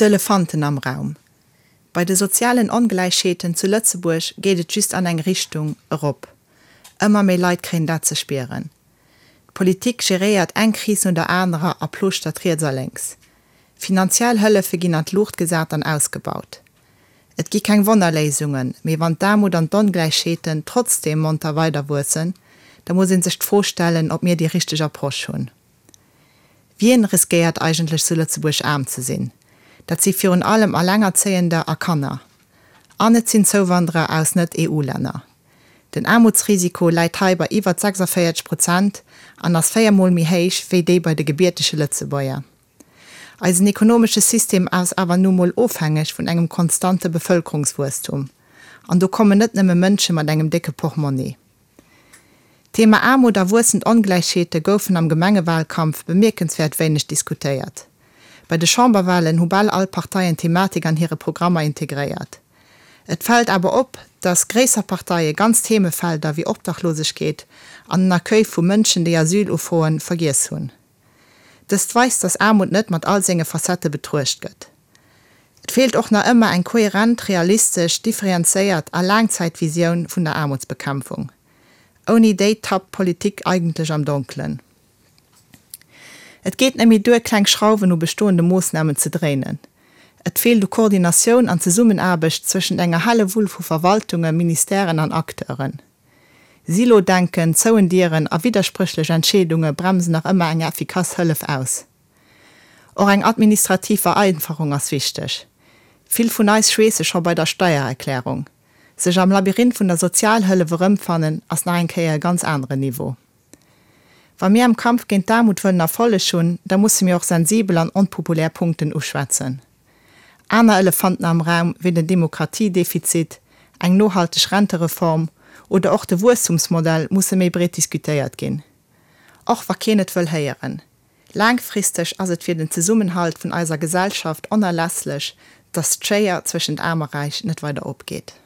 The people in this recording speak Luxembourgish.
D'Elefanten am Raum, Bei de sozialen Ongläichheeten zu Lëtzebuerg geet et just an eng Richtung, erop. Ëmmer méi Leit kréien dat ze spieren. D'Politik geréiert eng Kris no der anerer a plooschtert riets a lénks. Finanziell Hëllefe ginn an d'Luucht gesat an ausgebaut. Et gi keng Wonnerléisungen, mee wann d'Aarmut an d'Ongläichheeten trotzdeem monter weiderwuessen, da muss ee sech d'Fro stellen, ob mir déi richteg Approche hunn. Wien riskéiert eigentlech zu Lëtzebuerg aarm ze sinn? Dat si virun allem Allengerzéiender a Kanner. An et sinn Zouwanderer aus Net-EU-Länner. Den Aarmutsrisiko läit hei bei iwwert 46 Prozent an ass 4 Mol méi héich wéi dee bei de gebiertege Lëtzebuerger. Eisen ekonomesche System ass awer nu mol ofhängeg vun engem konstante Bevëlkerungswuesstum. An do kommen net nëmme Mënsche mat engem décke Portmonni. D'Thema Aarmut a wuessend Ongläichheete goufen am Gemengewalkampf bemierkenswäert wéineg diskutéiert. Bei de Chamberwalen hu bal all Parteien d'Thematik an hire Programmer integréiert. Et fält awer op, datt gréisser Parteie ganz Themefelder wéi Obdachlosegkeet an den Accueil vu Mënschen, déi Asyl ufroen, vergiess hunn. Dëst weist, datt Aarmut net mat all senge Facettë betruecht gëtt. Et feelt och nach ëmmer eng kohärent, realistesch, differenzéiert a Laangzäitvisioun vun der Aarmutsbekämpfung. Ouni déi tappt d'Politik eigentlech am Donkelen. Et geet net méi duer, kleng Schrauwen u bestoende Moossnamen ze dréinen. Et feelt u Koordinatioun an Zesummenaarbecht zwëschent enger Hellewull vu Verwaltungen, Ministèren an Acteuren. Silo-Denken, zouen Dieren a widderspréchlech Entscheedunge bremsen nach ëmmer eng effikass Hëllef aus. Och eng administrativ Vereinfachung ass wichteg. Vill vun eis schweesse scho bei der Steiererklärung. Sech am Labyrinth vun der Sozialhëllef erëmfannen, ass nach eng Kéier e ganz aneren Niveau. Wa mir am Kampf géint d'Aarmut wëllen Erfolleg hunn, da musse mir och sensibel an onpopulär Punkten uschwätzen. Aner Elefanten am Raum wéi den Demokratiedefizit, eng nohalteg Rentereform oder och de Wuesstumsmodell musse méi breet diskutéiert ginn. Och wa keen et wëll héieren. Laangfristeg ass et fir den Zesummenhalt vun eiser Gesellschaft onerlässlech, datt d'Schéier zwëschent Aarm a Räich net weider opgeet.